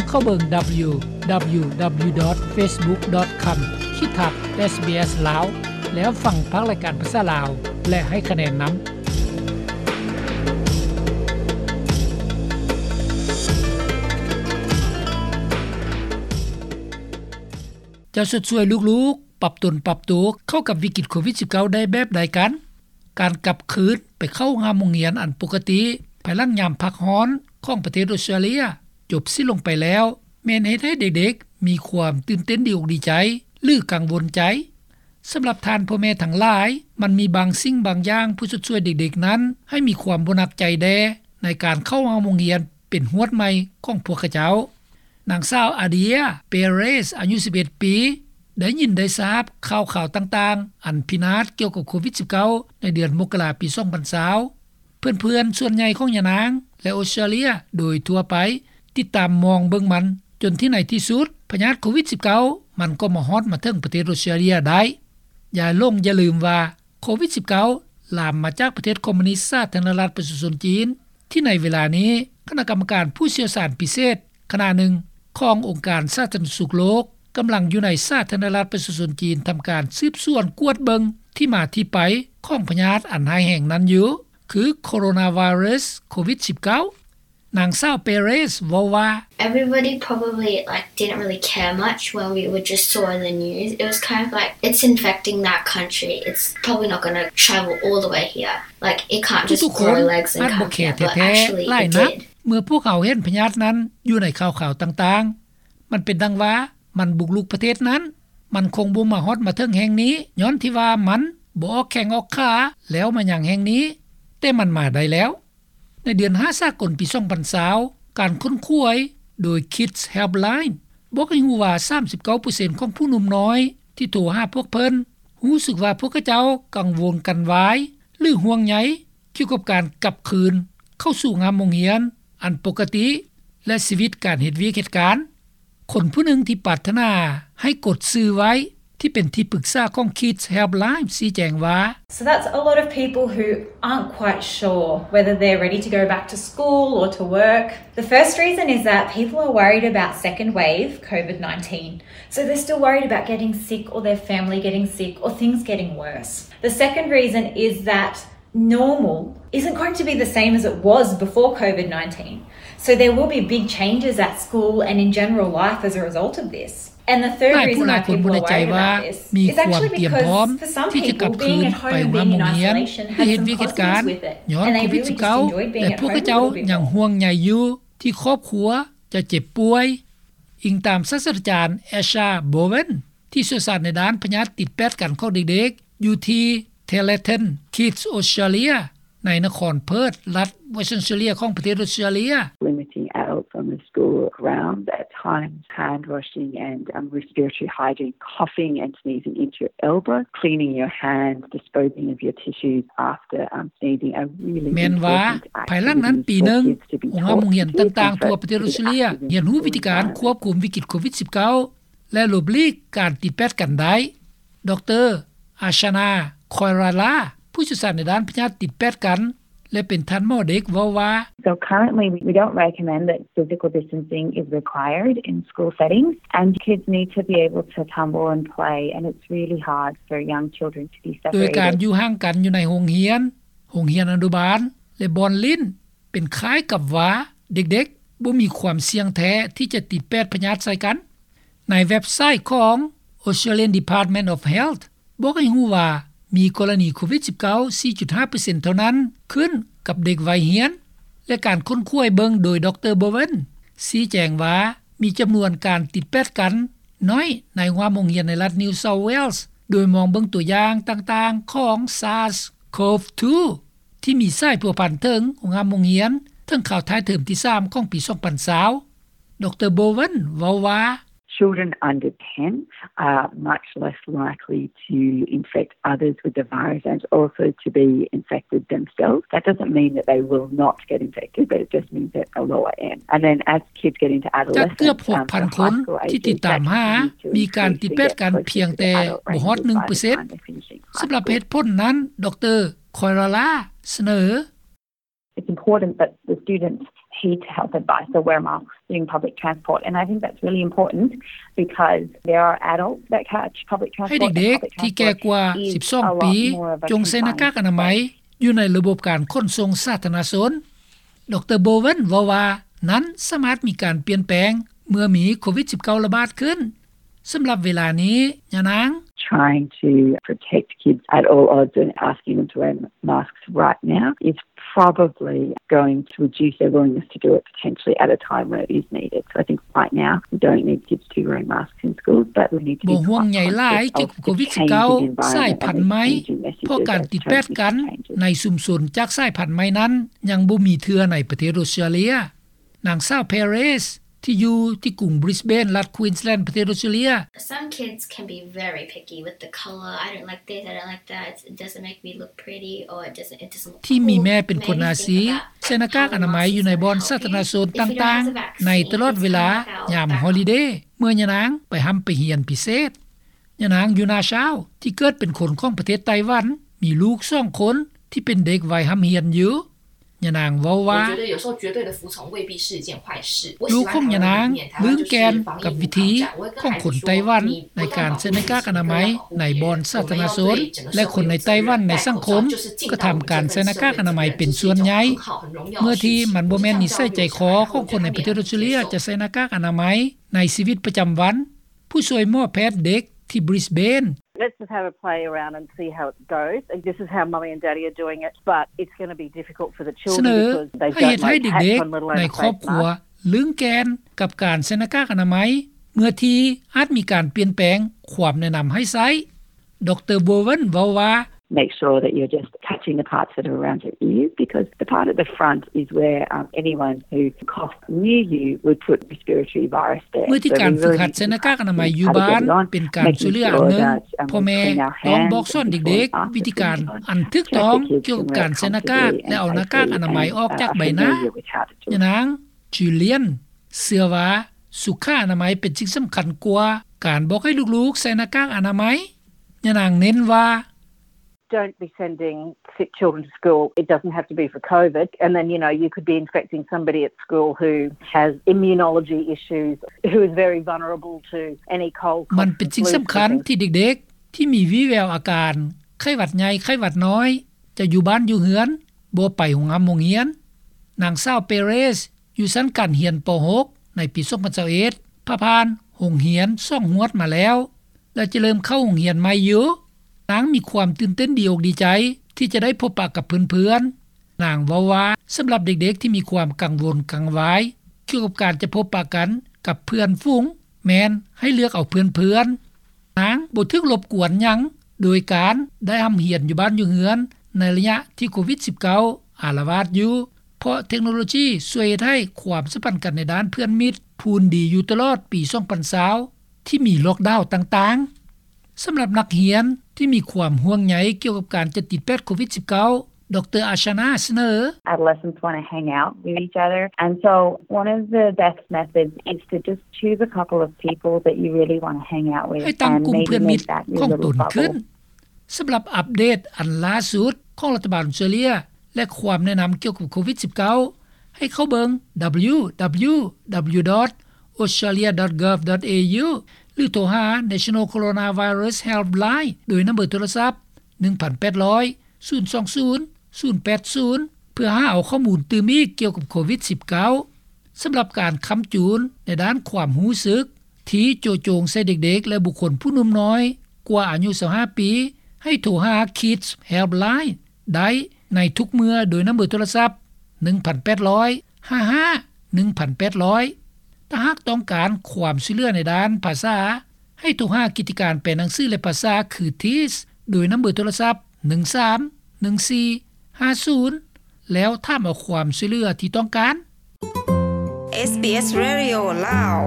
ເຂົ້າເບິ່ງ www.facebook.com/sbslao ແລ້ວຟັງພາກລາຍການພາສາລາວ ແລະ ໃຫ້ຄະແນນນຳ. ຈະຊົດຊ່ວຍລູກໆ ປັບຕົນປັບໂຕເຂົ້າກັບວິກິດໂຄວິດ-19 ໄດ້ແບບໃດກັນ? ການກັບຄືນໄປເຂົ້າໂຮງຮາມໂຮງຮຽນອັນປົກກະຕິ ພາຍຫຼັງຍາມພັກຮ້ອນຂອງປະເທດອົດສະຕຣາເລຍຈົບສິ້ນລົງໄປແລ້ວ ແມ່ນເຮັດໃຫ້ເດັກໆມີຄວາມຕື່ນເຕັ້ນດີອົກດີໃຈ ຫຼື ກັງວົນໃຈ? ສຳລັບທ່ານພໍ່ແມ່ທັງຫຼາຍ, ມັນມີບາງສິ່ງບາງຢ່າງເພື່ອຊົດຊ່ວຍເດັກໆນັ້ນໃຫ້ມີຄວາມບໍ່ໜັກໃຈແດ່ ໃນການເຂົ້າໂຮງຮາມໂຮງຮຽນເປັນຮວດໃໝ່ຂອງພວກເຂົາເຈົ້າ. ນາງສາວ ອາເດຍ ເປເຣສ ອາຍຸ ສິບເອັດ ປີ ໄດ້ຍິນໄດ້ຊາບຂ່າວຄາວຕ່າງໆ ອັນພິນາດກ່ຽວກັບໂຄວິດ-19 ໃນເດືອນມົກກະລາ ປີ ສອງພັນຊາວ. ເພື່ອນໆສ່ວນໃຫຍ່ຂອງຍານາງ ແລະ ອົດສະຕຣາເລຍໂດຍທົ່ວໄປ ຕິດຕາມມອງເບິ່ງມັນ ຈົນທີ່ໃນທີ່ສຸດ ພະຍາດໂຄວິດ-19 ມັນກໍມາຮອດມາເຖິງປະເທດອົດສະຕຣາເລຍໄດ້. ຢ່າຫຼົງຢ່າລືມວ່າ ໂຄວິດ-19 ລາມມາຈາກປະເທດຄອມມູນິດສາທາລະນະລັດປະຊາຊົນຈີນ ທີ່ໃນເວລານີ້ ຄະນະກຳມະການຜູ້ຊ່ຽວຊານພິເສດຄະນະໜຶ່ງຂອງອົງການສາທາລະນະສຸກໂລກ ກຳລັງຢູ່ໃນສາທາລະນະລັດປະຊາຊົນຈີນ ທຳການສືບສວນກວດເບິ່ງທີ່ມາທີ່ໄປຂອງພະຍາດອັນຮ້າຍແຮງນັ້ນຢູ່ ຄື Coronavirus ໂຄວິດ-19. ນາງສາວ ເປເຣສ ເວົ້າວ່າ Everybody probably, like, didn't really care much when we would just saw in the news. It was kind of like, it's infecting that country. It's probably not gonna travel all the way here. Like, it can't just grow legs and come here. But actually, it did. ເມື່ອພວກເຮົາເຫັນພະຍາດນັ້ນຢູ່ໃນຂ່າວໆຕ່າງໆ ມັນເປັນດັ່ງວ່າ ມັນບຸກລຸກປະເທດນັ້ນ, ມັນຄົງບໍ່ມາຮອດມາເຖິງແຫ່ງນີ້ ຍ້ອນທີ່ວ່າມັນບໍ່ອອກແຂ້ງອອກຂາ ແລ້ວມາຍັງແຫ່ງນີ້, ແຕ່ມັນມາໄດ້ແລ້ວ. ໃນເດືອນຫ້າສາກົນປີ ສອງພັນຊາວ ການຄົ້ນຄວ້າໂດຍ Kids Helpline ບອກໃຫ້ຮູ້ວ່າ ສາມສິບເກົ້າເປີເຊັນຂອງຜູ້ໜຸ່ມນ້ອຍທີ່ໂທຫາພວກເພິ່ນ ຮູ້ສຶກວ່າພວກເຂົາເຈົ້າກັງວົນກັນວາຍ ຫຼື ຫ່ວງໃຍ ກ່ຽວກັບການກັບຄືນເຂົ້າສູ່ໂຮງຮາມໂຮງຮຽນອັນປົກກະຕິ ແລະ ຊີວິດການເຮັດວຽກເຮັດການ. ຄົນຜູ້ໜຶ່ງທີ່ປາດຖະໜາໃຫ້ກົດຊື່ໄວ້ ທີ່ເປັນທີ່ປຶກສາຂອງ Kids Helpline ຊີ້ແຈງວ່າ So that's a lot of people who aren't quite sure whether they're ready to go back to school or to work. The first reason is that people are worried about second wave COVID-19. So they're still worried about getting sick or their family getting sick or things getting worse. The second reason is that normal isn't going to be the same as it was before COVID-19. So there will be big changes at school and in general life as a result of this. And the third reason why people are worried about this is actually because for some people, being at home and being in isolation has some positives with it. And they really just enjoyed being at home a little bit more. ທີ່ຄອບຄົວຈະເຈັບປ່ວຍ, ອີງຕາມສາດສະດາຈານ ແອຊາ ໂບເວັນ ທີ່ຊ່ຽວຊານໃນດ້ານພະຍາດຕິດແປດກັນຂອງເດັກໆ ຢູ່ທີ່ Telethon Kids Australia ໃນນະຄອນເພີດ ລັດ Western Australia ຂອງປະເທດອົດສະຕຣາເລຍ. Limiting adults on the school grounds at times, hand washing and, um, respiratory hygiene, coughing and sneezing into your elbow, cleaning your hands, disposing of your tissues after, um, sneezing are really important activities for kids to be taught to keep infected. ແມ່ນວ່າ ພາຍຫຼັງນັ້ນປີໜຶ່ງ ໂຮງຮາມໂຮງຮຽນຕ່າງໆທົ່ວປະເທດອົດສະຕຣາເລຍ ຮຽນຮູ້ວິທີການຄວບຄຸມວິກິດໂຄວິດ-19 ແລະ ຫຼົບຫຼີກການຕິດແປດກັນໄດ້. ດຣ. ອາຊານາ ຄອຍຣາລາ ຜູ້ຊ່ຽວຊານໃນດ້ານພະຍາດຕິດແປດກັນ ແລະ ເປັນທ່ານໝໍເດັກ ເວົ້າວ່າ So currently, we don't recommend that physical distancing is required in school settings, and kids need to be able to tumble and play, and it's really hard for young children to be separated. ໂດຍການຢູ່ຫ່າງກັນຢູ່ໃນໂຮງຮຽນ, ໂຮງຮຽນອະນຸບານ ແລະ ບ່ອນຫຼິ້ນ ເປັນຄ້າຍກັບວ່າເດັກໆບໍ່ມີຄວາມສ່ຽງແທ້ທີ່ຈະຕິດແປດພະຍາດໃສ່ກັນ. ໃນເວັບໄຊຂອງ Australian Department of Health ບອກໃຫ້ຮູ້ວ່າ ມີກໍລະນີໂຄວິດ-19 ສີ່ຈຸດຫ້າເປີເຊັນເທົ່ານັ້ນ ຂຶ້ນກັບເດັກໄວຮຽນ ແລະ ການຄົ້ນຄວ້າເບິ່ງໂດຍ ດຣ. ໂບເວັນ ຊີ້ແຈງວ່າ ມີຈຳນວນການຕິດແປດກັນໜ້ອຍໃນໂຮງຮາມໂຮງຮຽນໃນລັດ New South Wales ໂດຍມອງເບິ່ງຕົວຢ່າງຕ່າງໆຂອງ SARS-CoV two ທີ່ມີສາຍພົວພັນເຖິງໂຮງຮາມໂຮງຮຽນ ເຖິງຄາວທ້າຍເທີມທີສາມຂອງປີ ສອງພັນຊາວ. ດຣ. ໂບເວັນ ເວົ້າວ່າ Children under ten are much less likely to infect others with the virus and also to be infected themselves. That doesn't mean that they will not get infected, but it just means at a lower end. And then as kids get into adolescence, um, the high school age is that you need to increase to get closer to the adult range of virus. ຈາກເກືອບຫົກພັນຄົນທີ່ຕິດຕາມຫາ ມີການຕິດແປດກັນພຽງແຕ່ບໍ່ຮອດໜຶ່ງເປີເຊັນ. ສຳລັບເຫດຜົນນັ້ນ ດຣ. ຄອຍຣາລາ ສະເໜີ It's important that the students heed to health advice, so wear masks during public transport. And I think that's really important because there are adults that catch public transport. ໃຫ້ເດັກໆທີ່ແກ່ກວ່າສິບສອງປີ ຈົ່ງໃສ່ໜ້າກາກອະນາໄມຢູ່ໃນລະບົບການຂົນສົ່ງສາທາລະນະຊົນ. ດຣ. Bowen ເວົ້າວ່າ ນັ້ນສາມາດມີການປ່ຽນແປງເມື່ອມີໂຄວິດສິບເກົ້າລະບາດຂຶ້ນ. ສຳລັບເວລານີ້ ຍານາງ Trying to protect kids at all odds and asking them to wear masks right now is probably going to reduce their willingness to do it potentially at a time where it is needed. So I think right now we don't need kids to be wearing masks in schools, but we need to be ບໍ່ຫ່ວງໃຍຫຼາຍກ່ຽວກັບໂຄວິດສິບເກົ້າ ສາຍພັນໃໝ່ ເພາະການຕິດແປດກັນໃນຊຸມຊົນຈາກສາຍພັນໃໝ່ນັ້ນ ຍັງບໍ່ມີເທື່ອໃນປະເທດອົດສະຕຣາເລຍ. ນາງສາວ Perez ທີ່ຢູ່ທີ່ກຸງ Brisbane ລັດ Queensland ປະເທດອົດສະຕຣາເລຍ. Some kids can be very picky with the color. I don't like this, I don't like that. It doesn't make me look pretty, or it doesn't, it doesn't look cool. ທີ່ມີແມ່ເປັນຄົນໜ້າຊີ ໃສ່ໜ້າກາກອະນາໄມຢູ່ໃນບ່ອນສາທາລະນະຊົນຕ່າງໆ ໃນຕະຫຼອດເວລາຍາມຮອລິເດ ເມື່ອຍານາງໄປຮ່ຳໄປຮຽນພິເສດ. ຍານາງ Yuna Chao ທີ່ເກີດເປັນຄົນຂອງປະເທດໄຕ້ຫວັນ ມີລູກສອງຄົນທີ່ເປັນເດັກໄວຮ່ຳຮຽນຢູ່. ຍານາງເວົ້າວ່າ 我觉得有时候绝对的服从未必是一件坏事。 ລູກຂອງຍານາງລືມແກ່ນກັບວິທີຂອງຄົນໄຕ້ຫວັນໃນການໃສ່ໜ້າກາກອະນາໄມໃນບ່ອນສາທາລະນະຊົນ ແລະ ຄົນໃນໄຕ້ຫວັນໃນສັງຄົມກະທຳການໃສ່ໜ້າກາກອະນາໄມເປັນສ່ວນໃຫຍ່ ເມື່ອທີ່ມັນບໍ່ແມ່ນນິໄສໃຈຄໍຂອງຄົນໃນປະເທດອົດສະຕຣາເລຍຈະໃສ່ໜ້າກາກອະນາໄມໃນຊີວິດປະຈຳວັນ. ຜູ້ຊ່ວຍໝໍແພດເດັກທີ່ Brisbane. Let's just have a play around and see how it goes. This is how Mummy and Daddy are doing it, but it's gonna be difficult for the children because they don't like hats on, let alone a face mask. ສະເໜີໃຫ້ເຮັດໃຫ້ເດັກໆໃນຄອບຄົວລຶ້ງແກ່ນກັບການໃສ່ໜ້າກາກອະນາໄມ ເມື່ອທີ່ອາດມີການປ່ຽນແປງຄວາມແນະນຳໃຫ້ໃຊ້. ດຣ. Bowen ເວົ້າວ່າ Make sure that you're just touching the parts that are around your ears, because the part at the front is where, um, anyone who coughs near you would put respiratory virus there. ເມື່ອທີ່ການຝຶກຫັດໃສ່ໜ້າກາກອະນາໄມຢູ່ບ້ານເປັນການຊ່ວຍເຫຼືອອັນໜຶ່ງ, ພໍ່ແມ່ຕ້ອງບອກສອນເດັກໆວິທີການອັນຖືກຕ້ອງກ່ຽວກັບການໃສ່ໜ້າກາກ ແລະ ເອົາໜ້າກາກອະນາໄມອອກຈາກໃບໜ້າ. ຍານາງ Julian ເຊື່ອວ່າສຸຂະອະນາໄມເປັນສິ່ງສຳຄັນກວ່າການບອກໃຫ້ລູກໆໃສ່ໜ້າກາກອະນາໄມ. ຍານາງເນັ້ນວ່າ Don't be sending sick children to school. It doesn't have to be for COVID. And then, you know, you could be infecting somebody at school who has immunology issues, who is very vulnerable to any cold, cough, flu, ມັນເປັນສິ່ງສຳຄັນທີ່ເດັກໆທີ່ມີວີແວວອາການໄຂ້ຫວັດໃຫຍ່ ໄຂ້ຫວັດນ້ອຍ ຈະຢູ່ບ້ານຢູ່ເຮືອນ ບໍ່ໄປໂຮງຮ່ຳໂຮງຮຽນ. ນາງສາວ Perez ຢູ່ຊັ້ນການຮຽນ ປໍຫົກ ໃນປີສອງພັນຊາວເອັດ ຜ່າຜ່ານໂຮງຮຽນສອງຮວດມາແລ້ວ ແລະ ຈະເລີ່ມເຂົ້າໂຮງຮຽນໃໝ່ຢູ່. ນາງມີຄວາມຕື່ນເຕັ້ນດີອົກດີໃຈທີ່ຈະໄດ້ພົບປະກັບເພື່ອນໆ. ນາງເວົ້າວ່າ ສຳລັບເດັກໆທີ່ມີຄວາມກັງວົນກັງວາຍກ່ຽວກັບການຈະພົບປະກັນກັບເພື່ອນຝູງ ແມ່ນໃຫ້ເລືອກເອົາເພື່ອນໆ. ນາງບໍ່ຖືກລົບກວນຫຍັງໂດຍການໄດ້ຮ່ຳຮຽນຢູ່ບ້ານຢູ່ເຮືອນໃນໄລຍະທີ່ໂຄວິດສິບເກົ້າອາລະວາດຢູ່ ເພາະເທັກໂນໂລຊີຊ່ວຍເຮັດໃຫ້ຄວາມສຳພັນກັນໃນດ້ານເພື່ອນມິດພູນດີຢູ່ຕະຫຼອດປີສອງພັນຊາວ ທີ່ມີລັອກດາວຕ່າງໆ. ສຳລັບນັກຮຽນທີ່ມີຄວາມຫ່ວງໃຍກ່ຽວກັບການຈະຕິດແປດໂຄວິດສິບເກົ້າ ດຣ. Ashana ສະເໜີ Adolescents wanna hang out with each other, and so one of the best methods is to just choose a couple of people that you really wanna hang out with ໃຫ້ຕັ້ງກຸ່ມເພື່ອນມິດຂອງຕົນຂຶ້ນ. ສຳລັບອັບເດດອັນລ່າສຸດຂອງລັດຖະບານອົດສະຕຣາເລຍ ແລະ ຄວາມແນະນຳກ່ຽວກັບໂຄວິດສິບເກົ້າ ໃຫ້ເຂົ້າເບິ່ງ www.australia.gov.au ຫຼື ໂທຫາ National Coronavirus Helpline ໂດຍນຳເບີໂທລະສັບ ໜຶ່ງພັນແປດຮ້ອຍ ສູນສອງສູນ ສູນແປດສູນ ເພື່ອຫາເອົາຂໍ້ມູນຕື່ມອີກກ່ຽວກັບໂຄວິດສິບເກົ້າ. ສຳລັບການຄ້ຳຈູນໃນດ້ານຄວາມຮູ້ສຶກທີ່ໂຈະໂຈງໃສ່ເດັກໆ ແລະ ບຸກຄົນຜູ້ໜຸ່ມນ້ອຍກວ່າອາຍຸຊາວຫ້າປີ ໃຫ້ໂທຫາ Kids Helpline ໄດ້ໃນທຸກເມື່ອໂດຍນຳເບີໂທລະສັບ ໜຶ່ງພັນແປດຮ້ອຍ ຫ້າຫ້າ ໜຶ່ງພັນແປດຮ້ອຍ. ຖ້າຫາກຕ້ອງການຄວາມຊ່ວຍເຫຼືອໃນດ້ານພາສາ ໃຫ້ໂທຫາກິດຈະການແປໜັງສື ແລະ ພາສາ ຄື TEAS ໂດຍນຳເບີໂທລະສັບ ໜຶ່ງສາມ ໜຶ່ງສີ່ ຫ້າສູນ ແລ້ວຖາມເອົາຄວາມຊ່ວຍເຫຼືອທີ່ຕ້ອງການ. SBS Radio ລາວ.